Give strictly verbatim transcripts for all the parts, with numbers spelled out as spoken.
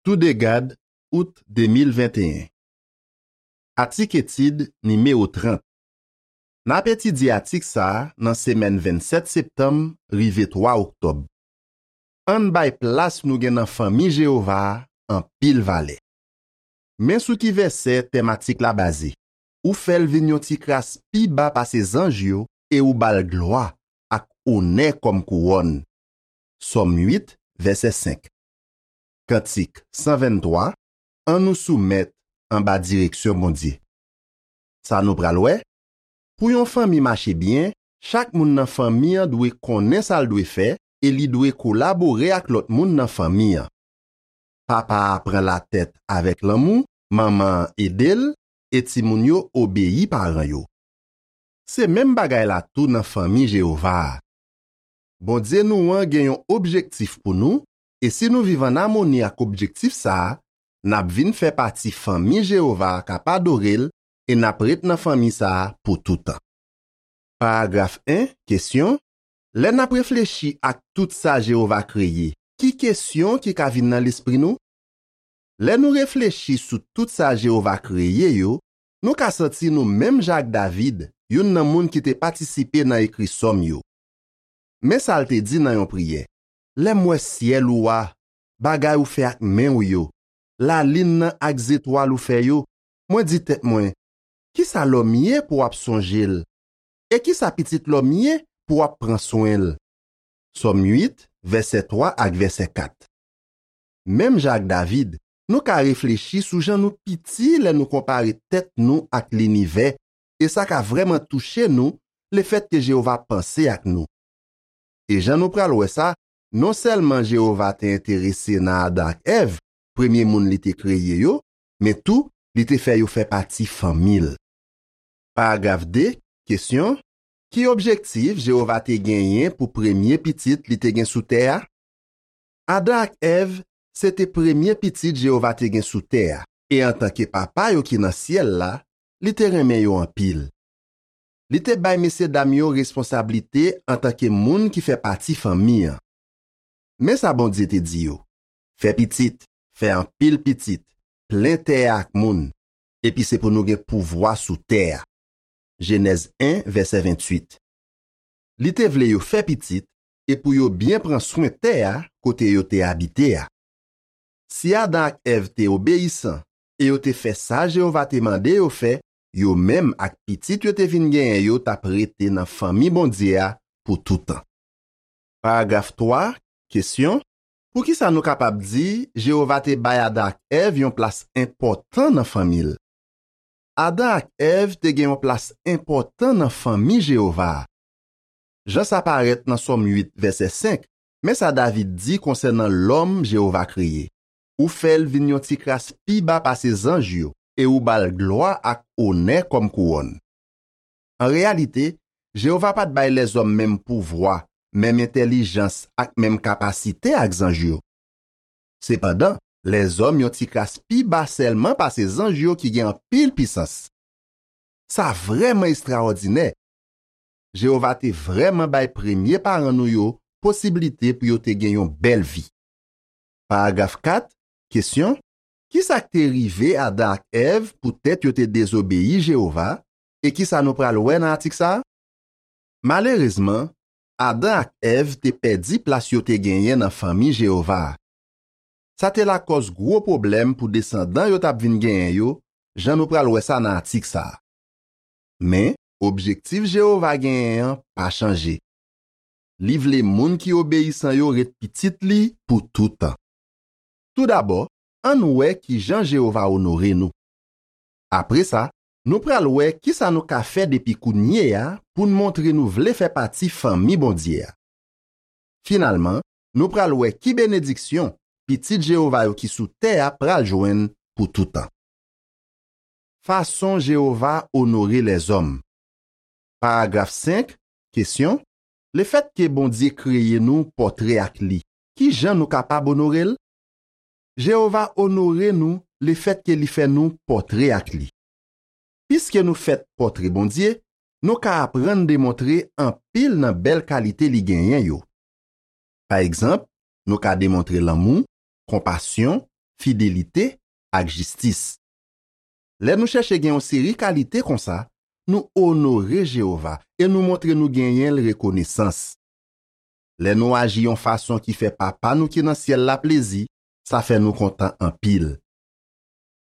Toudegad, out de mil venteyen. Atik etid nimewo trant. N ap etidye atik sa a nan semèn vennsèt septanm rive twa oktòb. Ann bay plas nou gen nan fanmi Jewova a anpil valè. Men sou ki vèsè tèm atik la baze: Ou fè l vin yon ti kras pi ba pase zanj yo, e ou ba l glwa ak onè kòm kouwòn. Sòm uit, vèsè senk. Kantik san venntwa, Ann nou soumèt anba direksyon Bondye. Sa nou pral wè: Pou yon fanmi mache byen, chak moun nan fanmi an dwe konnen sa l dwe fè e li dwe kolabore ak lòt moun nan fanmi an. Papa a pran latèt avèk lanmou, manman an ede l, e timoun yo obeyi paran yo. Se menm bagay la tou nan fanmi Jewova a. Bondye nou an gen yon objektif pou nou, e si nou viv ann amoni ak objektif sa a, n ap vin fè pati fanmi Jewova a k ap adore l, e n ap ret nan fanmi sa a pou toutan. Paragraf en, kesyon: Lè n ap reflechi ak tout sa Jewova kreye, ki kesyon ki ka vin nan lespri nou? Lè nou reflechi sou tout sa Jewova kreye yo, nou ka santi nou menm jan ak David, youn nan moun ki te patisipe nan ekri sòm yo. Men sa l te di nan yon priyè: Lè m wè syèl ou a, bagay ou fè ak men w yo, lalin nan ak zetwal ou fè yo, mwen di tèt mwen: Ki sa lòm ye pou w ap sonje l? E ki sa pitit lòm ye pou w ap pran swen l? Sòm uit, vèsè twa ak vèsè kat. Menm jan ak David, nou ka reflechi sou jan nou piti lè nou konpare tèt nou ak linivè, e sa ka vrèman touche nou lefètke Jewova panse ak nou. E jan nou pral wè sa, non sèlman Jewova te enterese nan Adan ak Èv, premye moun li te kreye yo, men tou, li te fè yo fè pati fanmi l. Paragraf de, kesyon: Ki objektif Jewova te genyen pou premye pitit li te gen sou tè a? Adan ak Èv se te premye pitit Jewova te gen sou tè a, e antanke Papa yo ki nan syèl la, li te renmen yo anpil. Li te bay mesyedam yo responsablite antanke moun ki fè pati fanmi an. Men sa Bondye te di yo: Fè pitit, fè anpil pitit, plen tè a ak moun, epi se pou nou gen pouvwa sou tè a. Jenèz en, vèsè ventuit. Li te vle yo fè pitit e pou yo byen pran swen tè a kote yo te abite a. Si Adan ak Èv te obeyisan e yo te fè sa Jewova te mande yo fè, yo menm ak pitit yo te vin genyen yo t ap rete nan fanmi Bondye a pou toutan. Paragraf twa, kesyon: Poukisa nou kapab di Jewova te bay Adan ak Èv yon plas enpòtan nan fanmi l? Adan ak Èv te gen yon plas enpòtan nan fanmi Jewova a. Jan sa parèt nan Sòm uit, vèsè senk, men sa David di konsènan lòm Jewova kreye: Ou fè l vin yon ti kras pi ba pase zanj yo, e ou ba l glwa ak onè kòm kouwòn. An reyalite, Jewova pa t bay lèzòm menm pouvwa, menm entèlijans ak menm kapasite ak zanj yo. Sepandan, lèzòm yon ti kras pi ba sèlman pase zanj yo ki gen anpil pisans. Sa vrèman estrawòdinè! Jewova te vrèman bay premye paran nou yo posiblite pou yo te gen yon bèl vi. Paragraf kat, kesyon: Ki sa k te rive Adan ak Èv poutèt yo te dezobeyi Jewova, e ki sa nou pral wè nan atik sa a? Malerezman, Adan ak Èv te pèdi plas yo te genyen nan fanmi Jewova a. Sa te lakòz gwo pwoblèm pou desandan yo t ap vin genyen yo, jan nou pral wè sa nan atik sa a. Men, objektif Jewova genyen an pa chanje. Li vle moun ki obeyisan yo ret pitit li pou toutan. Toudabò, ann wè ki jan Jewova onore nou. Apre sa, nou pral wè ki sa nou ka fè depi kounye a pou n montre nou vle fè pati fanmi Bondye a. Finalman, nou pral wè ki benediksyon pitit Jewova yo ki sou tè a pral jwenn pou toutan. Fason Jewova onore lèzòm. Paragraf senk, kesyon: Lefètke Bondye kreye nou pòtre ak li, ki jan nou kapab onore l? Jewova onore nou lefètke li fè nou pòtre ak li. Piske nou fèt pòtre Bondye, nou ka aprann demontre anpil nan bèl kalite li genyen yo. Pa egzanp, nou ka demontre lanmou, konpasyon, fidelite ak jistis. Lè nou chèche gen yon seri kalite konsa, nou onore Jewova e nou montre nou genyen l rekonesans. Lè nou aji yon fason ki fè Papa nou ki nan syèl la plezi, sa fè nou kontan anpil.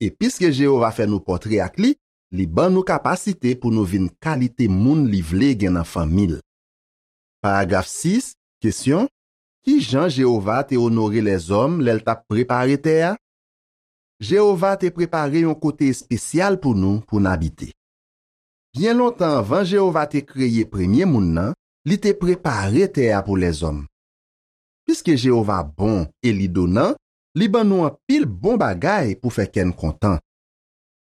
E piske Jewova fè nou pòtre ak li, li ban nou kapasite pou nou vin kalite moun li vle gen nan fanmi l. Paragraf sis, kesyon, ki jan Jewova te onore lèzòm lè l t ap prepare tè a? Jewova te prepare yon kote espesyal pou nou pou n abite. Byen lontan anvan Jewova te kreye premye moun nan, li te prepare tè a pou lèzòm. Piske Jewova bon e li donan, li ban nou anpil bon bagay pou fè kè n kontan.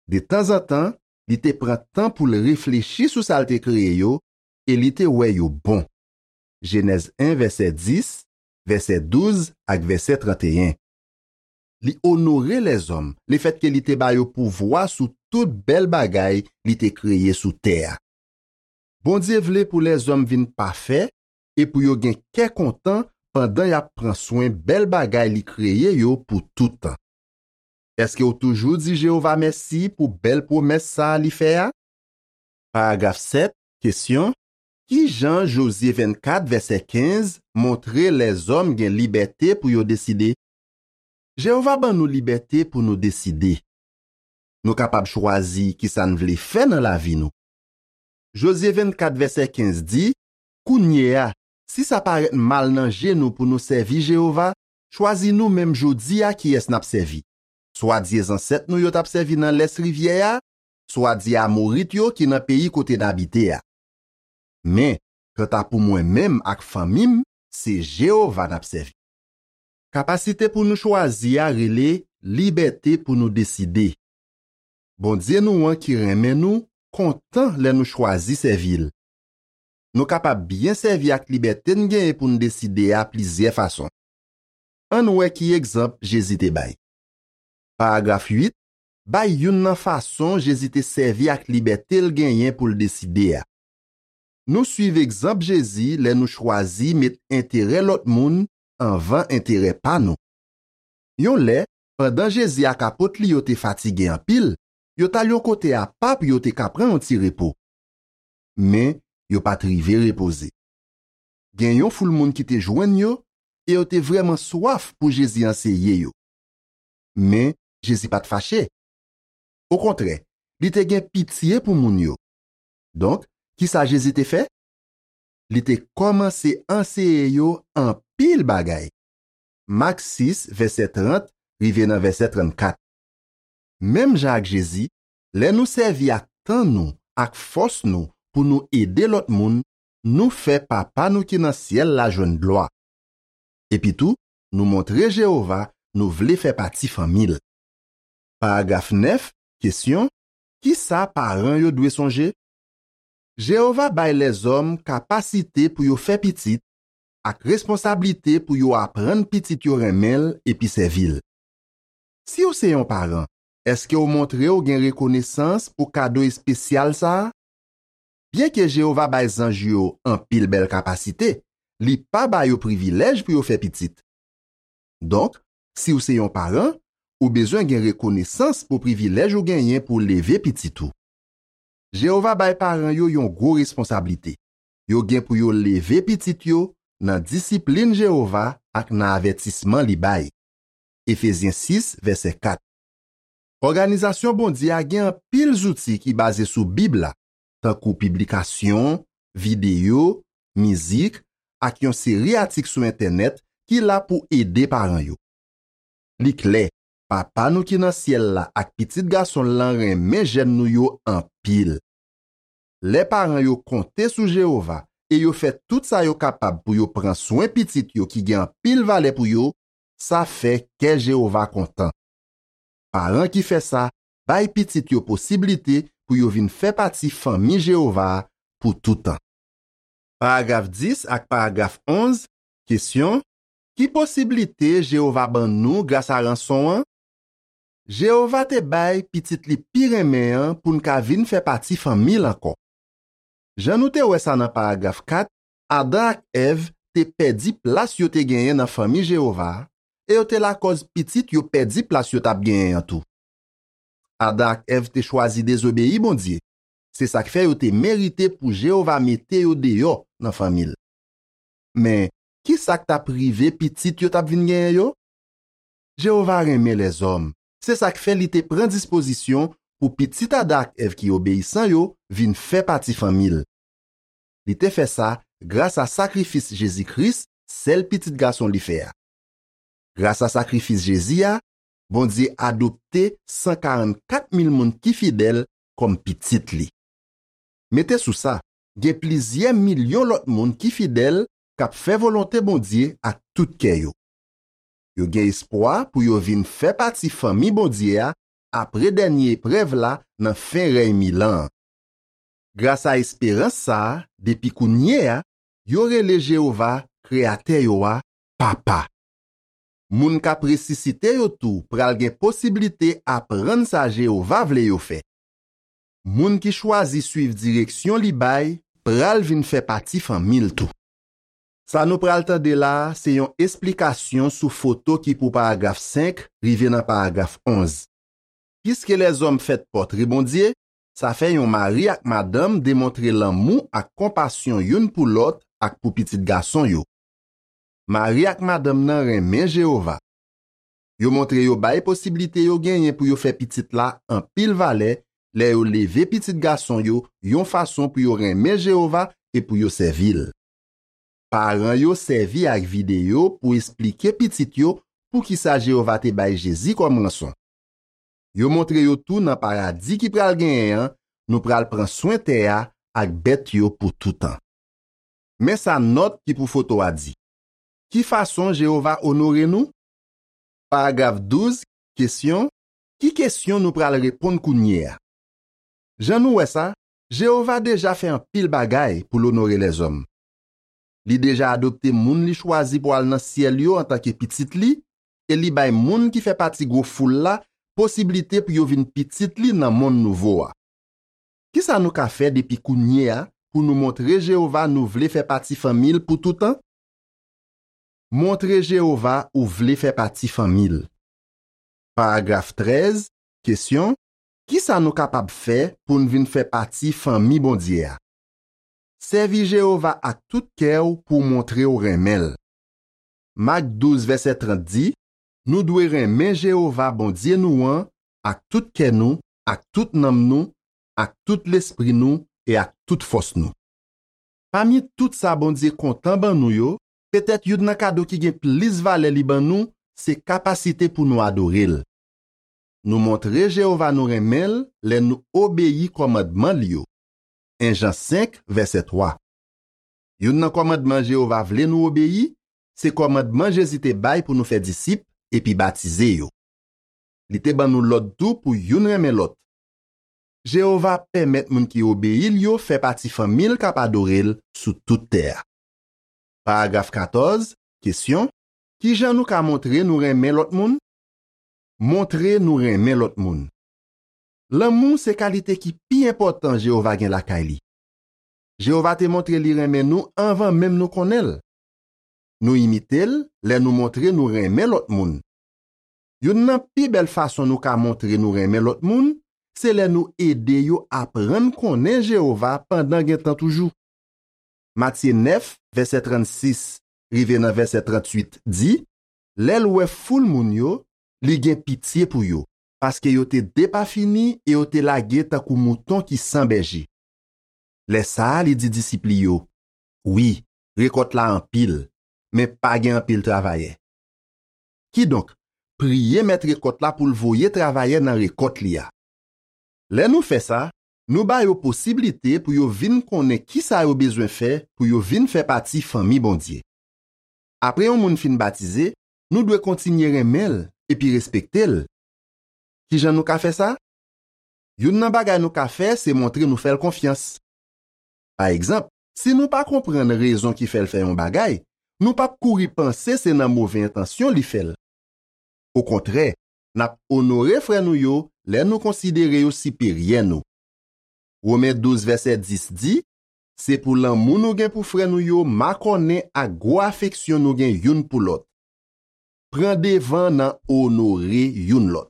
Detanzantan, li te pran tan pou l reflechi sou sa l te kreye yo e li te wè yo bon. Jenèz en, vèsè dis, vèsè douz ak vèsè trannteyen. Li onore lèzòm lefètke li te ba yo pouvwa sou tout bèl bagay li te kreye sou tè a. Bondye vle pou lèzòm vin pafè e pou yo gen kè kontan pandan y ap pran swen bèl bagay li kreye yo pou tout tan. Èske w toujou di Jewova mèsi pou bèl pwomès sa a li fè a? Paragraf sèt, kesyon, ki jan Jozye vennkat, vèsè kenz, montre lèzòm gen libète pou yo deside? Jewova ban nou libète pou nou deside. Nou kapab chwazi ki sa n vle fè nan lavi nou. Jozye vennkat, vèsè kenz di, kounye a, si sa parèt mal nan je nou pou nou sèvi Jewova, chwazi nou menm jodi a kiyès n ap sèvi. Swa dye zansèt nou yo t ap sèvi nan lès rivyè a, swa dye Amorit yo ki nan peyi kote n abite a. Men, kanta pou mwen menm ak fanmi m, se Jewova n ap sèvi. Kapasite pou nou chwazi a rele libète pou nou deside. Bondye nou an ki renmen nou kontan lè nou chwazi sèvi l. Nou kapab byen sèvi ak libète n genyen pou n deside a plizyè fason. Ann wè ki egzanp Jezi te bay. Paragraf uit, bay youn nan fason Jezi te sèvi ak libète l genyen pou l deside a. Nou suiv egzanp Jezi lè nou chwazi met enterè lòt moun anvan enterè pa nou. Yon lè, pandan Jezi ak apot li yo te fatige anpil, yo t al yon kote apa pou yo te ka pran yon ti repo. Men, yo pa t rive repoze. Gen yon foul moun ki te jwenn yo e yo te vrèman swaf pou Jezi anseye yo. Men, Jezi pa t fache. Okontrè, li te gen pitye pou moun yo. Donk, ki sa Jezi te fè? Li te kòmanse anseye yo anpil bagay. Mak sis, vèsè trant, rive nan vèsè trannkat. Menm jan ak Jezi, lè nou sèvi ak tan nou, ak fòs nou pou nou ede lòt moun, nou fè Papa nou ki nan syèl la jwenn glwa. Epitou, nou montre Jewova nou vle fè pati fanmi l. Paragraf nèf, kesyon, ki sa paran yo dwe sonje? Jewova bay lèzòm kapasite pou yo fè pitit ak responsablite pou yo aprann pitit yo renmen l epi sèvi l. Si w se yon paran, èske w montre w gen rekonesans pou kado espesyal sa a? Byenke Jewova bay zanj yo anpil bèl kapasite, li pa ba yo privilèj pou yo fè pitit. Donk, si w se yon paran, ou bezwen gen rekonesans pou privilèj ou genyen pou w leve pitit ou. Jewova bay paran yo yon gwo responsablite. Yo gen pou yo leve pitit yo nan disiplin Jewova ak nan avètisman li bay. Efezyen sis, vèsè kat. Òganizasyon Bondye a gen anpil zouti ki baze sou Bib la, tankou piblikasyon, videyo, mizik, ak yon seri atik sou entènèt ki la pou ede paran yo. Li klè, Papa nou ki nan syèl la ak Pitit Gason l lan renmen jèn nou yo anpil. Lè paran yo konte sou Jewova e yo fè tout sa yo kapab pou yo pran swen pitit yo ki gen anpil valè pou yo, sa fè kè Jewova kontan. Paran ki fè sa bay pitit yo posiblite pou yo vin fè pati fanmi Jewova a pou toutan. Paragraf dis ak paragraf onz, kesyon, ki posiblite Jewova ban nou gras a ranson an? Jewova te bay Pitit li pi renmen an pou n ka vin fè pati fanmi l ankò. Jan nou te wè sa nan paragraf kat, Adan ak Èv te pèdi plas yo te genyen nan fanmi Jewova a, e yo te lakòz pitit yo pèdi plas yo t ap genyen an tou. Adan ak Èv te chwazi dezobeyi Bondye. Se sa k fè yo te merite pou Jewova mete yo deyò nan fanmi l. Men, ki sa k t ap rive pitit yo t ap vin genyen yo? Jewova renmen lèzòm. Se sa k fè li te pran dispozisyon pou pitit Adan ak Èv ki obeyisan yo vin fè pati fanmi l. Li te fè sa gras a sakrifis Jezi Kris, sèl Pitit Gason li fè a. Gras a sakrifis Jezi a, Bondye adopte san karannkat mil moun ki fidèl kòm pitit li. Mete sou sa, gen plizyè milyon lòt moun ki fidèl k ap fè volonte Bondye ak tout kè yo. Yo gen espwa pou yo vin fè pati fanmi Bondye a apre dènye eprèv la nan fen rèy mil an an. Gras a esperans sa a, depi kounye a, yo rele Jewova, Kreyatè yo a, Papa. Moun k ap resisite yo tou pral gen posiblite aprann sa Jewova vle yo fè. Moun ki chwazi suiv direksyon li bay pral vin fè pati fanmi l tou. Sa nou pral tande la a se yon esplikasyon sou foto ki pou paragraf senk rive nan paragraf onz. Piske lèzòm fèt pòtre Bondye, sa fè yon mari ak madanm demontre lanmou ak konpasyon youn pou lòt ak pou pitit gason yo. Mari ak madanm nan renmen Jewova. Yo montre yo bay posiblite yo genyen pou yo fè pitit la anpil valè lè yo leve pitit gason yo yon fason pou yo renmen Jewova e pou yo sèvi l. Paran yo sèvi ak videyo pou esplike pitit yo poukisa Jewova te bay Jezi kòm ranson. Yo montre yo tou nan paradi ki pral genyen an, nou pral pran swen tè a ak bèt yo pou toutan. Men sa nòt ki pou foto a di. Ki fason Jewova onore nou? Paragraf douz, kesyon, ki kesyon nou pral reponn kounye a? Jan nou wè sa, Jewova deja fè anpil bagay pou l onore lèzòm. Li deja adopte moun li chwazi pou al nan syèl yo antanke pitit li, e li bay moun ki fè pati gwo foul la posiblite pou yo vin pitit li nan monn nouvo a. Ki sa nou ka fè depi kounye a pou nou montre Jewova nou vle fè pati fanmi l pou toutan? Montre Jewova ou vle fè pati fanmi l. Paragraf trèz, kesyon, ki sa nou kapab fè pou n vin fè pati fanmi Bondye a? Sèvi Jewova ak tout kè w pou w montre w renmen l. Mak douz, vèsè trant di, nou dwe renmen Jewova, Bondye nou an, ak tout kè nou, ak tout nanm nou, ak tout lespri nou e ak tout fòs nou. Pami tout sa Bondye kontan ban nou yo, petèt youn nan kado ki gen plis valè li ban nou se kapasite pou nou adore l. Nou montre Jewova nou renmen l lè nou obeyi kòmandman l yo. En Jan senk, vèsè twa. Youn nan kòmandman Jewova vle nou obeyi, se kòmandman Jezi te bay pou nou fè disip epi batize yo. Li te ban nou lòd tou pou youn renmen lòt. Jewova pèmèt moun ki obeyi l yo fè pati fanmi l k ap adore l sou tout tè a. Paragraf katòz, kesyon, ki jan nou ka montre nou renmen lòt moun? Montre nou renmen lòt moun. Lanmou se kalite ki pi enpòtan Jewova gen lakay li. Jewova te montre li renmen nou anvan menm nou konnen l. Nou imite l lè nou montre nou renmen lòt moun. Youn nan pi bèl fason nou ka montre nou renmen lòt moun, se lè nou ede yo aprann konnen Jewova pandan gen tan toujou. Matye nèf, vèsè trannsis rive nan vèsè tranntuit di, lè l wè foul moun yo, li gen pitye pou yo, paske yo te depafini e yo te lage tankou mouton ki san bèje. Lè sa a, li di disip li yo, wi, rekòt la anpil, men pa gen anpil travayè. Kidonk, priye mèt rekòt la pou l voye travayè nan rekòt li a. Lè nou fè sa, nou ba yo posiblite pou yo vin konnen ki sa yo bezwen fè pou yo vin fè pati fanmi Bondye. Apre yon moun fin batize, nou dwe kontinye renmen l epi respekte l. Ki jan nou ka fè sa? Youn nan bagay nou ka fè se montre nou fè l konfyans. Pa egzanp, si nou pa konprann rezon ki fè l fè yon bagay, nou p ap kouri panse se nan move entansyon li fè l. Okontrè, n ap onore frè nou yo lè nou konsidere yo siperyè nou. Women douz, vèsè dis di, se pou lanmou nou gen pou frè nou yo makònen ak gwo afeksyon nou gen youn pou lòt. pran devan nan onore youn lòt.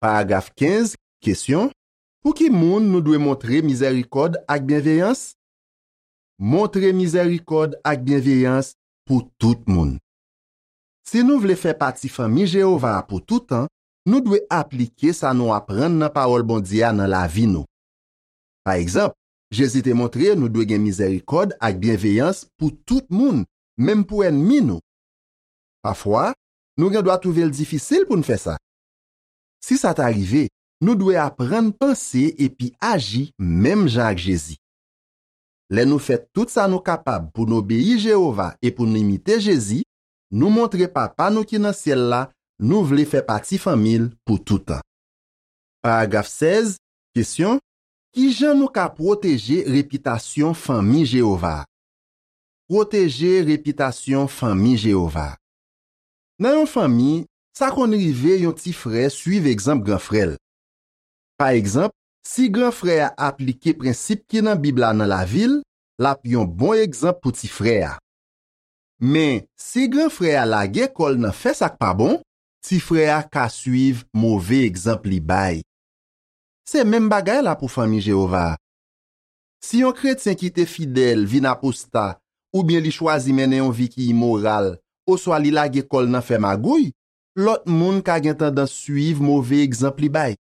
Paragraf kenz, kesyon: Pou ki moun nou dwe montre mizèrikòd ak byenveyans? Montre mizèrikòd ak byenveyans pou tout moun. Si nou vle fè pati fanmi Jewova a pou toutan, nou dwe aplike sa nou aprann nan pawòl Bondye a nan lavi nou. Pa egzanp, Jezi te montre nou dwe gen mizèrikòd ak byenveyans pou tout moun, menm pou ènmi nou. Pafwa, nou gendwa twouve l difisil pou n fè sa. Si sa ta rive, nou dwe aprann panse epi aji menm jan ak Jezi. Lè nou fè tout sa nou kapab pou n obeyi Jewova e pou n imite Jezi, nou montre Papa nou ki nan syèl la nou vle fè pati fanmi l pou toutan. Paragraf sèz, kesyon: Ki jan nou ka pwoteje repitasyon fanmi Jewova a? Pwoteje repitasyon fanmi Jewova a. Nan yon fanmi, sa konn rive yon ti frè suiv egzanp gran frè l. Pa egzanp, si gran frè a aplike prensip ki nan Bib la nan lavi l, l ap yon bon egzanp pou ti frè a. Men, si gran frè a lage kò l nan fè sa k pa bon, ti frè a ka suiv move egzanp li bay. Se menm bagay la pou fanmi Jewova a. Si yon kretyen ki te fidèl vin aposta, oubyen li chwazi mennen yon vi ki imoral, oswa li lage kò l nan fè magouy, lòt moun ka gen tandans suiv move egzanp li bay.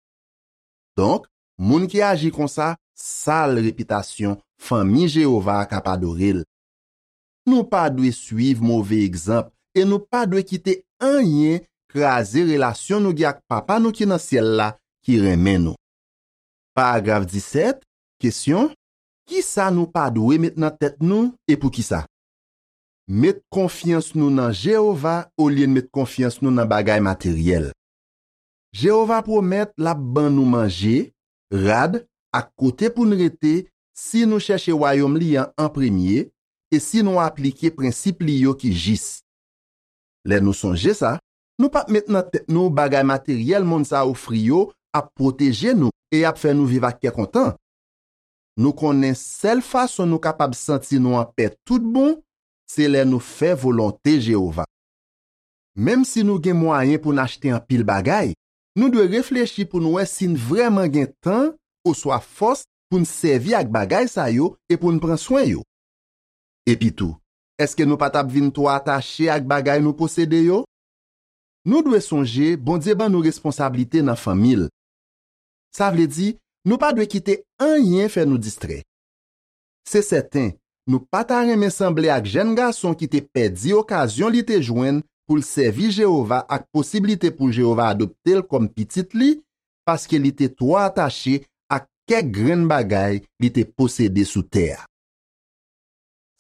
Donk, moun ki aji konsa sal repitasyon fanmi Jewova a k ap adore l. Nou pa dwe suiv move egzanp e nou pa dwe kite anyen kraze relasyon nou gen ak Papa nou ki nan syèl la ki renmen nou. Paragraf disèt, kesyon: Ki sa nou pa dwe met nan tèt nou e poukisa? Met konfyans nou nan Jewova olye n met konfyans nou nan bagay materyèl. Jewova pwomèt l ap ban nou manje, rad, ak kote pou n rete si nou chèche Wayòm li an an premye e si nou aplike prensip li yo ki jis. Lè nou sonje sa, nou p ap met nan tèt nou bagay materyèl monn sa a ofri yo ap pwoteje nou e y ap fè nou viv ak kè kontan. Nou konnen sèl fason nou kapab santi nou anpè toutbon, se lè nou fè volonte Jewova. Menm si nou gen mwayen pou n achte anpil bagay, nou dwe reflechi pou n wè si n vrèman gen tan oswa fòs pou n sèvi ak bagay sa yo e pou n pran swen yo. Epitou, èske nou pa t ap vin twò atache ak bagay nou posede yo? Nou dwe sonje Bondye ban nou responsablite nan fanmi l. Sa vle di, nou pa dwe kite anyen fè nou distrè. Se sèten, nou pa ta renmen sanble ak jèn gason ki te pèdi okazyon li te jwenn pou l sèvi Jewova ak posiblite pou Jewova adopte l kòm pitit li, paske li te twò atache ak kèk grenn bagay li te posede sou tè a.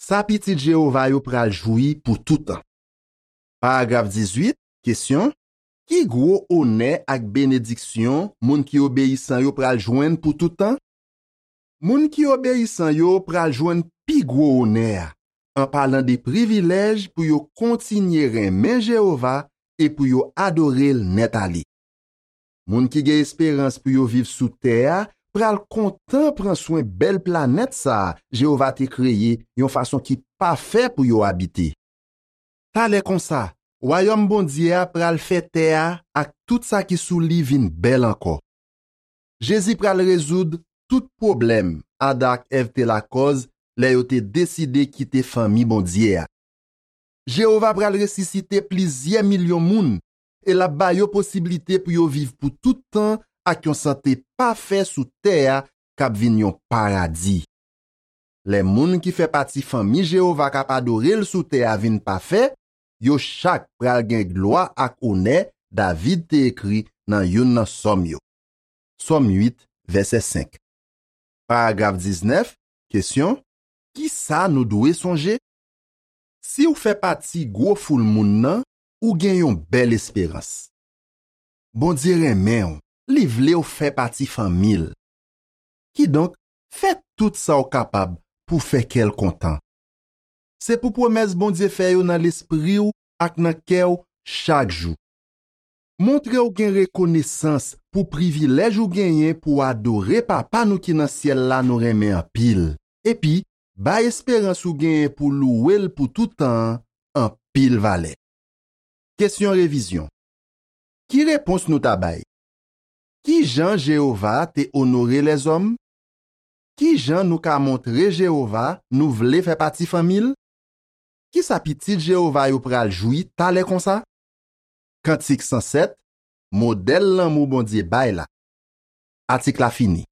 Sa pitit Jewova yo pral jwi pou toutan. Paragraf dizuit, kesyon: Ki gwo onè ak benediksyon moun ki obeyisan yo pral jwenn pou toutan? Moun ki obeyisan yo pral jwenn pi gwo onè a, an palan de privilèj pou yo kontinye renmen Jewova e pou yo adore l nèt ale. Moun ki gen esperans pou yo viv sou tè a pral kontan pran swen bèl planèt sa a Jewova te kreye yon fason ki pafè pou yo abite. Talè konsa, Wayòm Bondye a pral fè tè a ak tout sa ki sou li vin bèl ankò. Jezi pral rezoud tout pwoblèm Adan ak Èv te lakòz lè yo te deside kite fanmi Bondye a. Jewova pral resisite plizyè milyon moun e l ap ba yo posiblite pou yo viv pou tout tan ak yon sante pafè sou tè a k ap vin yon paradi. Lè moun ki fè pati fanmi Jewova k ap adore l sou tè a vin pafè, yo chak pral gen glwa ak onè David te ekri nan youn nan sòm yo. Sòm uit, vèsè senk. Paragraf diznèf, kesyon: Ki sa nou dwe sonje? Si w fè pati gwo foul moun nan, ou gen yon bèl esperans. Bondye renmen w, li vle w fè pati fanmi l. Kidonk, fè tout sa w kapab pou fè kè l kontan. Se pou pwomès Bondye fè yo nan lespri w ak nan kè w chak jou. Montre w gen rekonesans pou privilèj ou genyen pou w adore Papa nou ki nan syèl la nou renmen anpil, epi bay esperans ou genyen pou louwe l pou tout tan an anpil valè. Kesyon revizyon. Ki repons nou ta bay? Ki jan Jewova te onore lèzòm? Ki jan nou ka montre Jewova nou vle fè pati fanmi l? Ki sa pitit Jewova yo pral jwi talè konsa? Kantik san sèt, modèl lanmou Bondye bay la. Atik la fini.